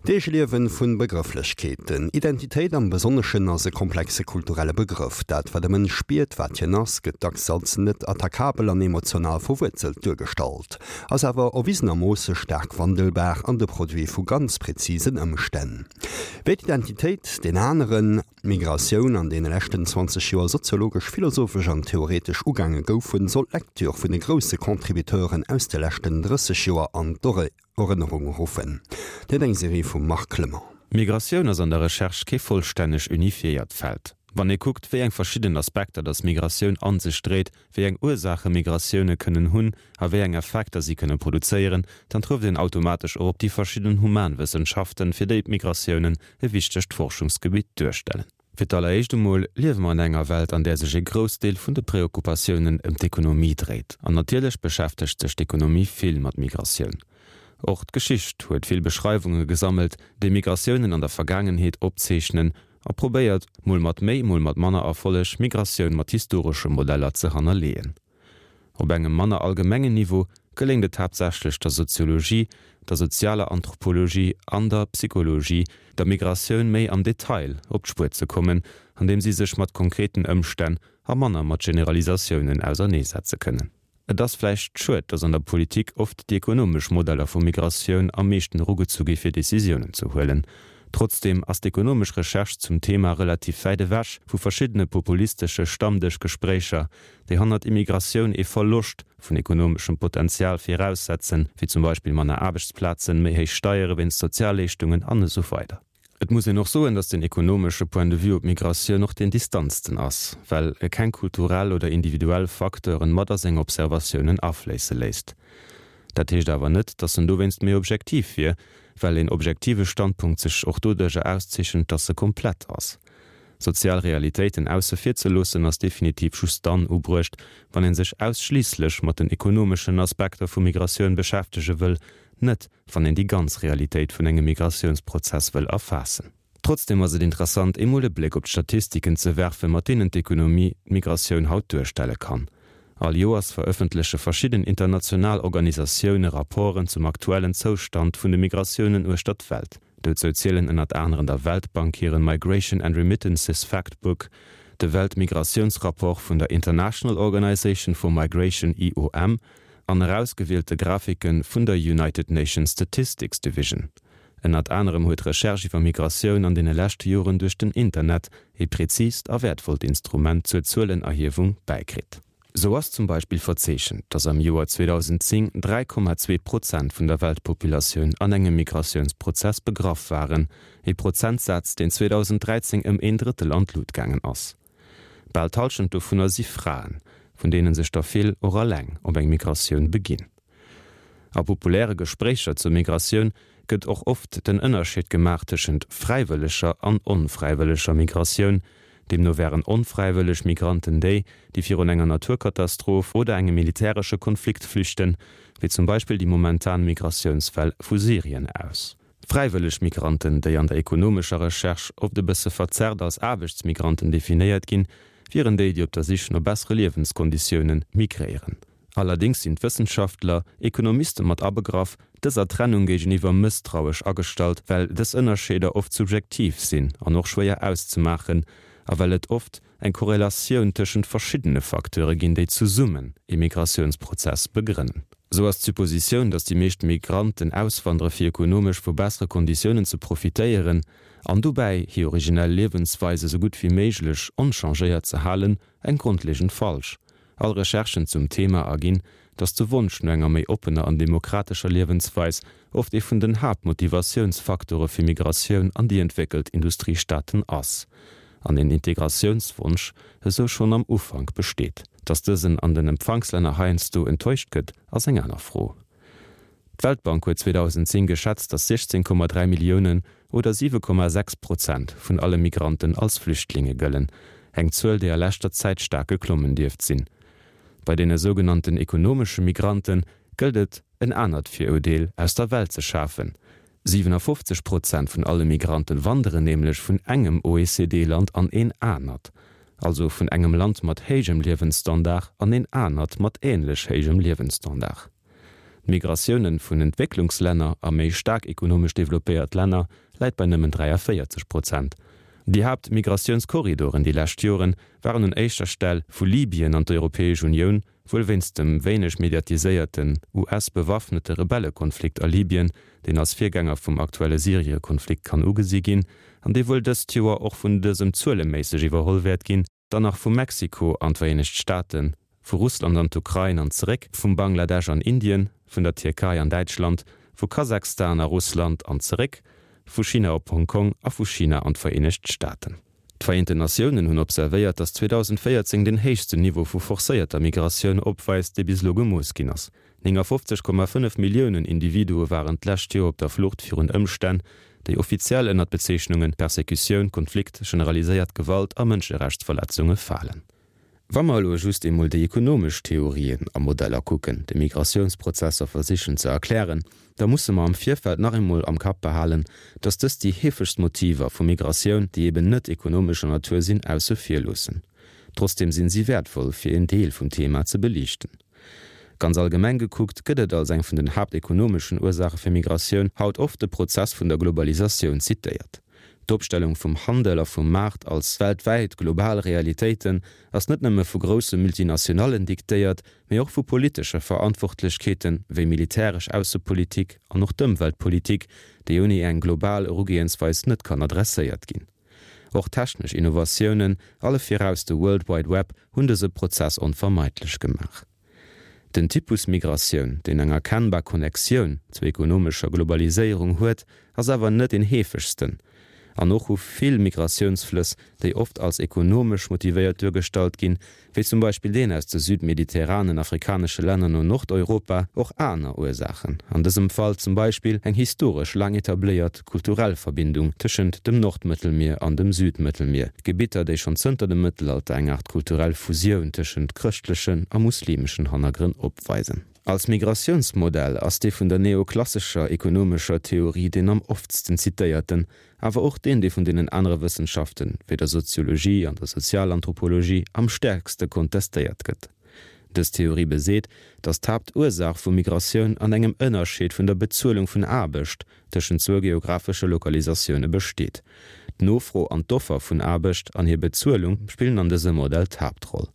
D'Eegeliewen vun Begrëfflechkeeten. Identitéit am Besonneschen ass e komplexe kulturelle Begrëff. Dat wat e Mënsch spiert, wat hien ass, gëtt dacks als net attackabel an emotional verwuerzelt duergestallt, ass awer erwisenermoosse staark wandelbar an de Produit vu ganz präzisen Ëmstänn. Wéi d'Identitéit, deen aneren, d'Migratioun an deene leschten 20 Joer soziologesch, philosophesch an theoretesch ugaange goufen, soll d'Lecture vun de grousse Contributeuren aus de leschten 30 Joer an d'Ore. Erënnerung ruffen. Dat eng Serie vum Marc Clement. Migratioun ass an der Recherche kee vollstänneg unifiéiert Feld. Wann ee kuckt, wéi eng verschidden Aspekter datt Migratioun an sech dréit, wéi eng Ursaache Migratioune kënnen hunn a wéi eng Effekter si kënne produzéieren, dann trëfft een automatesch och op déi verschidden Humanwëssenschaften, fir déi d'Migratiounen e wichtegt Forschungsgebitt duerstellen. Fir d'alleréischt emol liewe mer an enger Welt, an där sech e Groussdeel vun de Preoccupatiounen ëm d'Ekonomie dréit. An natierlech beschäftegt sech d'Ekonomie vill mat Migratioun. Och d'Geschicht huet vill Beschreiwunge gesammelt, déi Migratiounen an der Vergaangenheet opzeechnen a probéiert, mol mat méi, mol mat manner Erfolleg, Migratioun mat historesche Modeller ze hannerleeën. Op engem manner allgemengen Niveau geléngt et haaptsächlech der Soziologie, der sozialer Anthropologie an der Psychologie, der Migratioun méi am Detail op d'Spuer ze kommen, andeem si sech mat konkreten Ëmstänn a manner mat Generalisatiounen auserneesetze kënnen. Et ass vläicht schued, datt an der Politik oft déi ekonomesch Modeller vu Migratioun am meeschten erugezu gi fir Decisiounen ze huelen. Trotzdeem ass d'ekonomesch Recherche zum Thema relativ wäit ewech vu verschiddene populistesche Stammdëschgespréicher, déi hannert Immigratioun ee Verloscht vun ekonomeschem Potenzial viraussetzen, wéi zum Beispill manner Aarbechtsplazen, méi héich Steiere wéinst Sozialleeschtungen an esou weider. Et muss een och soen, datt den ekonomesche Point de vue op d'Migratioun och deen distanzten ass, well e keng kulturell oder individuell Facteuren mat a seng Observatiounen afléisse léisst. Dat heescht awer net, datt en dowéinst méi objektiv wier, well een objektive Standpunkt sech och doduercher auszeechent, datt e komplett ass. Sozial Realitéiten ausse vir ze loossen ass definitiv just dann ubruecht, wann een sech ausschliisslech mat den ekonomeschen Aspekter vu Migratioun beschäftege wëll, net wann een déi ganz Realitéit vun engem Migratiounsprozess wëll erfaassen. Trotzdem ass et interessant eemol e Bléck op d'Statistiken ze werfen, mat deenen d'Ekonomie d'Migratioun haut duerstelle kann. All Joers verëffentleche verschidden international Organisatioune Rapporten zum aktuellen Zoustand vun de Migratiounen uechter d'Welt. Dozou zielen ënnert aneren der Weltbank hiren Migration and Remittances Factbook, de Weltmigratiounsrapport vun der International Organization for Migration, IOM, an erausgewielte Grafike vun der United Nations Statistics Division. Ënnert anerem huet d'Recherche iwwer Migratioun an deene leschte Joren duerch den Internet ee präzist a wäertvollt Instrument zur Zuelenerhiewung bäikritt. Sou ass zum Beispill verzeechent, datt am Joer 2010 3,2 Prozent vun der Weltpopulatioun an engem Migratiounsprozess begraff waren, ee Prozentsaz, deen 2013 ëm een Drëttel an d'Lut gaangen ass. Bal d'Hallschent dovunner si Fraen, vun deene sech der vill och eleng op eng Migratioun beginn. A populäre Gespréicher zur Migratioun gëtt och oft den Ënnerscheed gemaach tëschent fräiwëlleger an onfräiwëlleger Migratioun. Deemno wären onfräiwëlleg Migranten déi, déi virun enger Naturkatastroph oder engem militäresche Konflikt flüchten, wéi zum Beispill déi momentan Migratiounswell vu Syrien aus. Fräiwëlleg Migranten, déi an der ekonomescher Recherche oft e bësse verzerrt als Aarbechtsmigranten definéiert ginn, wieren déi, déi op der Sich no bessere Liewenskonditioune migréieren. Allerdéngs sinn d'Wëssenschaftler, Ekonomiste mat abegraff, dëser Trennung géigeniwwer mësstrauesch agestallt, well dës Ënnerscheeder oft subjektiv sinn an och schwéier auszemaachen a well et oft eng Korrelatioun tëschent verschiddene Facteure ginn, déi zesummen ee Migratiounsprozess begrënnen. Sou ass d'Suppositioun, datt déi meescht Migranten auswandere fir ekonomesch vu bessere Konditiounen ze profitéieren an dobäi hir originell Liewensweis esou gutt wéi méiglech onchangéiert ze halen, eng grondlegend falsch. All Recherchen zum Thema erginn, datt de Wonsch no enger méi oppener an demokratescher Liewensweis oft ee vun den Haaptmotivatiounsfaktore fir Migratioun an déi entwéckelt Industriestaaten ass, an een Integratiounswonsch esou schonn am Ufank besteet. Datt dësen an den Empfangslänner heiansdo enttäuscht gëtt, ass eng aner Fro. D'Weltbank huet 2010 geschätzt, datt 16,3 Milliounen oder 7,6 Prozent vun alle Migranten als Flüchtlinge gëllen, eng Zuel, déi a leschter Zäit staark geklommen dierft sinn. Bei deene sougenannten ekonomesche Migrante gëllt et, en anert Viruerdeel aus der Welt ze schafen. 57 Prozent vun alle Migranten wanderen nämlech vun engem OECD-Land an een anert, also vun engem Land mat héijem Liewensstandard an een anert mat änlech héijem Liewensstandard. D'Migratiounen vun Entwécklungslänner a méi staark ekonomesch developpéiert Länner läit bei nëmmen 43 Prozent. Déi Haaptmigratiounskorridoren déi lescht Joren waren un éischter Stell vu Libyen an d'Europäesch Unioun, wuel wéinst dem wéineg mediatiséierten US-bewaffnete Rebellekonflikt a Libyen, deen als Virgänger vum aktuelle Syrie-Konflikt kann ugesi ginn an dee wuel dëst Joer och vun dësem zueleméisseg iwwerholl wäert ginn. Dann nach vu Mexiko an d'Vereenegt Staaten, vu Russland an d'Ukrain an zeréck, vum Bangladesch an Indien, vun der Tierkei an Däitschland, vu Kasachstan a Russland an zeréck, vu China op Hong Kong a vu China an d'Vereenegt Staaten. D'Vereenten Natiounen hunn observéiert, datt 2014 den héichsten Niveau vu forcéierter Migratioun opweist, dee bis elo gemooss ginn ass. 59,5 Milliounen Individue waren d'lescht Joer op der Flucht virun Ëmstänn, déi offiziell ënner d'Bezeechnunge Persekutioun, Konflikt, generaliséiert Gewalt a Mënscherechtsverletzunge falen. Wa mer elo just eemol déi ekonomesch Theorien a Modeller kucken, déi Migratiounsprozesser versichen ze erklären, da musse mer am Virfeld nach eemol am Kapp behalen, dass dës déi heefegst Motiver vu Migratioun, déi eben net ekonomescher Natur sinn, ausse vir loossen. Trotzdeem sinn si wäertvoll, fir een Deel vum Thema ze beliichten. Ganz allgemeng gekuckt gëtt et als eng vun den haaptekonomeschen Ursaache fir Migratioun haut oft de Prozess vun der Globalisatioun zitéiert. D'Opstellung vum Handel a vum Maart als weltwäit global Realitéiten ass net nëmme vu grousse Multinationallen diktéiert, mee och vu politesche Verantwortlechkeete wéi militäresch Aussepolitik an och d'Ëmweltpolitik, déi ouni eng global Erugehensweis net kann adresséiert ginn. Och technesch Innovatiounen, alle viraus de World Wide Web, hunn dëse Prozess onvermeidlech gemaach. Den Typus Migratioun, deen eng erkennbar Connectioun zur ekonomescher Globaliséierung huet, ass awer net deen heefegsten. An och hu vill Migratiounsflëss, déi oft als ekonomesch motivéiert duergestallt ginn, wéi zum Beispill deen aus de südmediterranen afrikanesche Länner no Nordeuropa, och aner Ursaachen, an dësem Fall zum Beispill eng historesch laang etabléiert kulturell Verbindung tëschent dem Nordmëttelmier an dem Südmëttelmier, Gebitter, déi schonn zënter dem Mëttelalter eng Aart kulturell Fusioun tëschent chrëschtlechen a muslimeschen Hannergrënn opweisen. Als Migratiounsmodell ass dee vun der neoklassescher ekonomescher Theorie deen am oftsten zitéierten, awer och deen, dee vun deenen anere Wëssenschaften, wéi der Soziologie an der Sozialanthropologie, am stäerkste kontestéiert gëtt. Dës Theorie beseet, datt d'Haaptursaach vu Migratioun an engem Ënnerscheed vun der Bezuelung vun Aarbecht tëschent zwou geographesche Lokalisatioune besteet. D'Nofro an d'Offer vun Aarbecht an hir Bezuelung spillen an dësem Modell d'Haaptroll.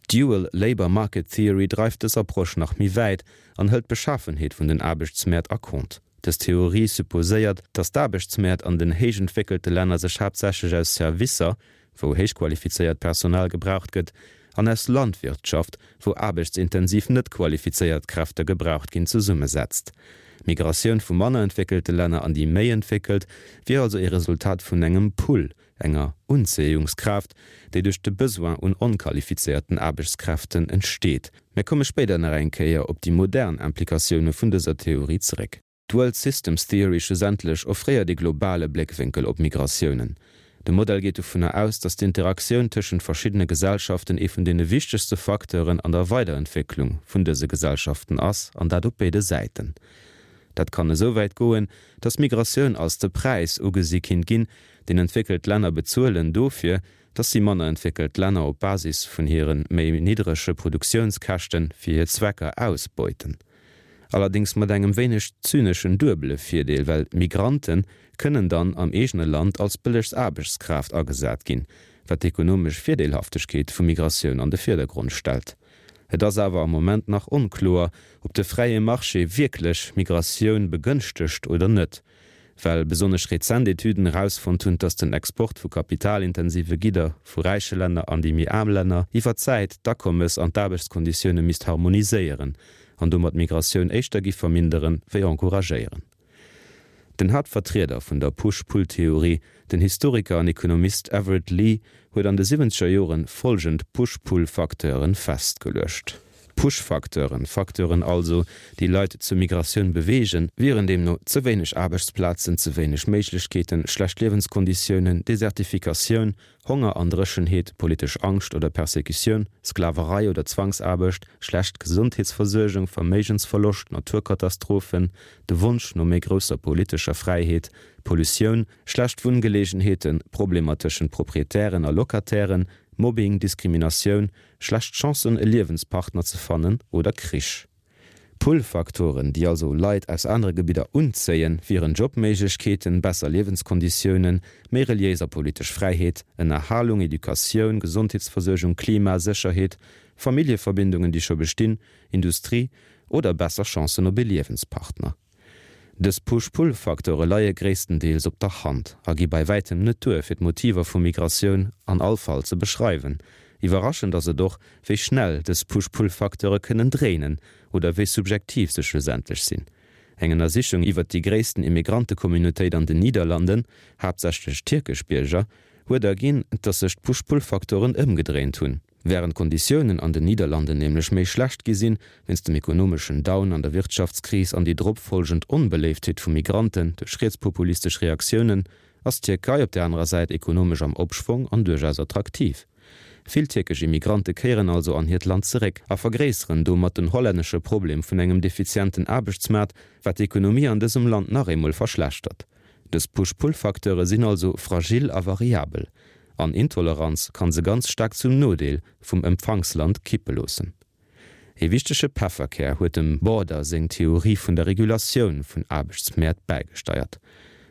D'Dual Labour Market Theory dreift dës Approche nach méi wäit an hëlt d'Beschafenheet vun den Aarbechtsmäert a Compte. Dës Theorie supposéiert, datt d'Aarbechtsmäert an den héich entwéckelte Länner sech haaptsächlech aus Servicer, wou héichqualifizéiert Personal gebraucht gëtt, an aus Landwirtschaft, wou aarbechtsintensiv net qualifizéiert Kräfte gebraucht ginn, zesummesetzt. D'Migratioun vu manner entwéckelte Länner an déi méi entwéckelt wier also ee Resultat vun engem Pull, enger Unzéiungskraaft, déi duerch de Besoin un onqualifizéierten Aarbechtskräften entsteet. Mir komme spéider nach eng Kéier op déi modern Implikatioune vun dëser Theorie zeréck. D'World Systems Theory schlussendlech offréiert ee globale Bléckwénkel op Migratiounen. De Modell geet dovunner aus, datt d'Interaktioun tëschent verschiddene Gesellschaften ee vun deene wichtegste Facteuren an der Weiderentwécklung vun dëse Gesellschaften ass, an dat op béide Säiten. Dat kann esou wäit goen, datt Migratioun als de Präis ugesi kinnt ginn, deen entwéckelt Länner bezuelen dofir, dass si manner entwéckelt Länner op Basis vun hire méi niddrege Produktiounskäschte fir hir Zwecker ausbeuten. Allerdéngs mat engem wéineg zyneschen duebele Virdeel, well Migrante kënnen dann am eegene Land als bëllegst Aarbechtskraaft agesat ginn, wat d'ekonomesch Virdeelhaftegkeet vu Migratioun an de Virdergrond stellt. Et ass awer am Moment nach onkloer, ob de fräie Marché wierklech Migratioun begënschtegt oder net. Well besonnesch rezent Etüden erausfonnt hunn, dass den Export vu kapitalintensive Gidder vu räiche Länner an déi méi aarm Länner iwwer d'Zäit d'Akommes an d'Aarbechtskonditioune misst harmoniséieren an domat d'Migratioun éischter giff verminderen, wéi encouragéieren. Den Haaptvertrieder vun der Push-Pull-Theorie, den Historiker an Ekonomist Everett Lee, huet an de siwwenzeger Joren folgend Push-Pull-Facteuren festgeluecht. Push-Facteuren, Facteuren also, déi Leit zur Migratioun beweegen, wieren deemno ze wéineg Aarbechtsplazen, ze wéineg Méiglechkeeten, schlecht Liewenskonditiounen, Desertifikatioun, Honger an Dréchenheet, politesch Angscht oder Persekutioun, Sklaverei oder Zwangsaarbecht, schlecht Gesondheetsversuergung, Verméigensverloscht, Naturkatastrophen, de Wonsch no méi grousser politescher Fräiheet, Pollutioun, schlecht Wunngeleegenheeten, Problemer tëschent Proprietären a Locatairen, Mobbing, Diskriminatioun, schlecht Chancen e Liewenspartner ze fannen oder Krich. Pull-Faktoren, déi also Leit aus anere Gebidder unzéien, wieren Jobméiglechkeeten, besser Liewenskonditiounen, méi reliéis a politesch Fräiheet, Ënnerhalung, Educatioun, Gesondheetsversuergung, Klima, Sécherheet, Familljeverbindungen, déi scho bestinn, Industrie oder besser Chancen op ee Liewenspartner. Dës Push-Pull-Facteure leie gréisstendeels op der Hand a gi bei wäitem net duer, fir d'Motiver vu Migratioun an all Fall ze beschreiwen. Iwwerraschend ass et och, wéi schnell dës Push-Pull-Facteure kënnen dréinen oder wéi subjektiv se schlussendlech sinn. Eng Ënnersichung iwwert déi gréissten Immigrantecommunautéit an den Niederlanden, haaptsächlech tierkesch Bierger, huet erginn, dass sech d'Push-Pull-Facteuren ëmgedréint hunn. Wärend d'Konditiounen an den Niederlanden nämlech méi schlecht gi sinn, wéinst dem ekonomeschen Down an der Wirtschaftskris an déi drop folgend Onbeléiftheet vu Migranten duerch rietspopulistesch Reaktiounen, ass d'Tierkei op der anerer Säit ekonomesch am Opschwong an duerchaus attraktiv. Vill tierkesch Immigrante kéieren also an hiert Land zeréck a vergréisseren domat den hollännesche Problem vun engem defizienten Aarbechtsmaart, wat d'Ekonomie an dësem Land nach eemol verschlechtert. Dës Push-Pull-Facteure sinn also fragil a variabel, an Intoleranz kann se ganz staark zum Nodeel vum Empfangsland kippe loossen. Ee wichtege Pefferkär huet dem Border seng Theorie vun der Regulatioun vun Aarbechtsmäert bäigesteiert.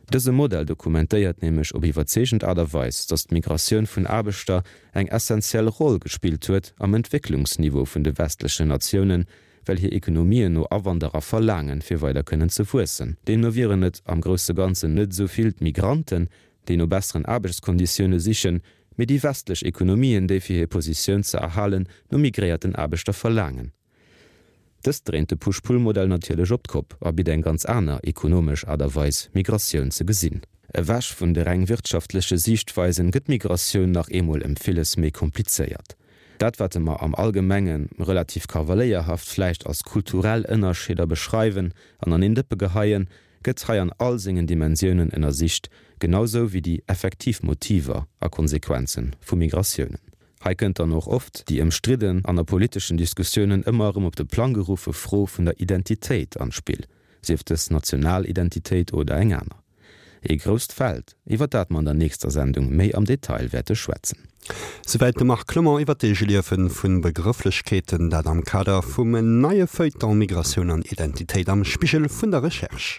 Dëse Modell dokumentéiert nämlech op iwwerzeegend Aart a Weis, datt d'Migratioun vun Aarbechter eng essentiell Roll gespillt huet am Entwécklungsniveau vun de westlechen Natiounen, well hir Ekonomien no Awanderer verlaangen, fir weider kënnen ze wuessen. Deemno wieren et am grousse Ganzen net esou vill d'Migranten, déi no besseren Aarbechtskonditioune sichen, mee déi westlech Ekonomien, déi fir hir Positioun ze erhalen no migréierten Aarbechter verlaangen. Dëst dréint de Push-Pull-Modell natierlech op d'Kopp a bitt eng ganz aner ekonomesch Aart a Weis, Migratioun ze gesinn. Ewech vun de reng wirtschaftleche Siichtweisen gëtt d'Migratioun nach eemol ëm villes méi komplizéiert. Dat wat mer am Allgemenge relativ kavaléierhaft vläicht als kulturell Ënnerscheeder beschreiwen an an een Dëppe geheien, gëtt hei an all sengen Dimensiounen ënnersicht, genau sou wéi déi effektiv Motiver a Konsequenze vu Migratiounen. Hei kënnt dann och oft déi ëmstridden an a politeschen Diskussiounen ëmmer erëm op de Plang geruffe Fro vun der Identitéit an d'Spill, sief dës national Identitéit oder eng aner. Ee grousst Feld, iwwer dat mer an der nächster Sendung méi am Detail wäerte schwätzen. Souwäit de Marc Clement iwwer d'Eegeliewe vu Begrëfflechkeeten, dat am Kader vum neie Feuilleton Migratioun an Identitéit am Spigel vun der Recherche.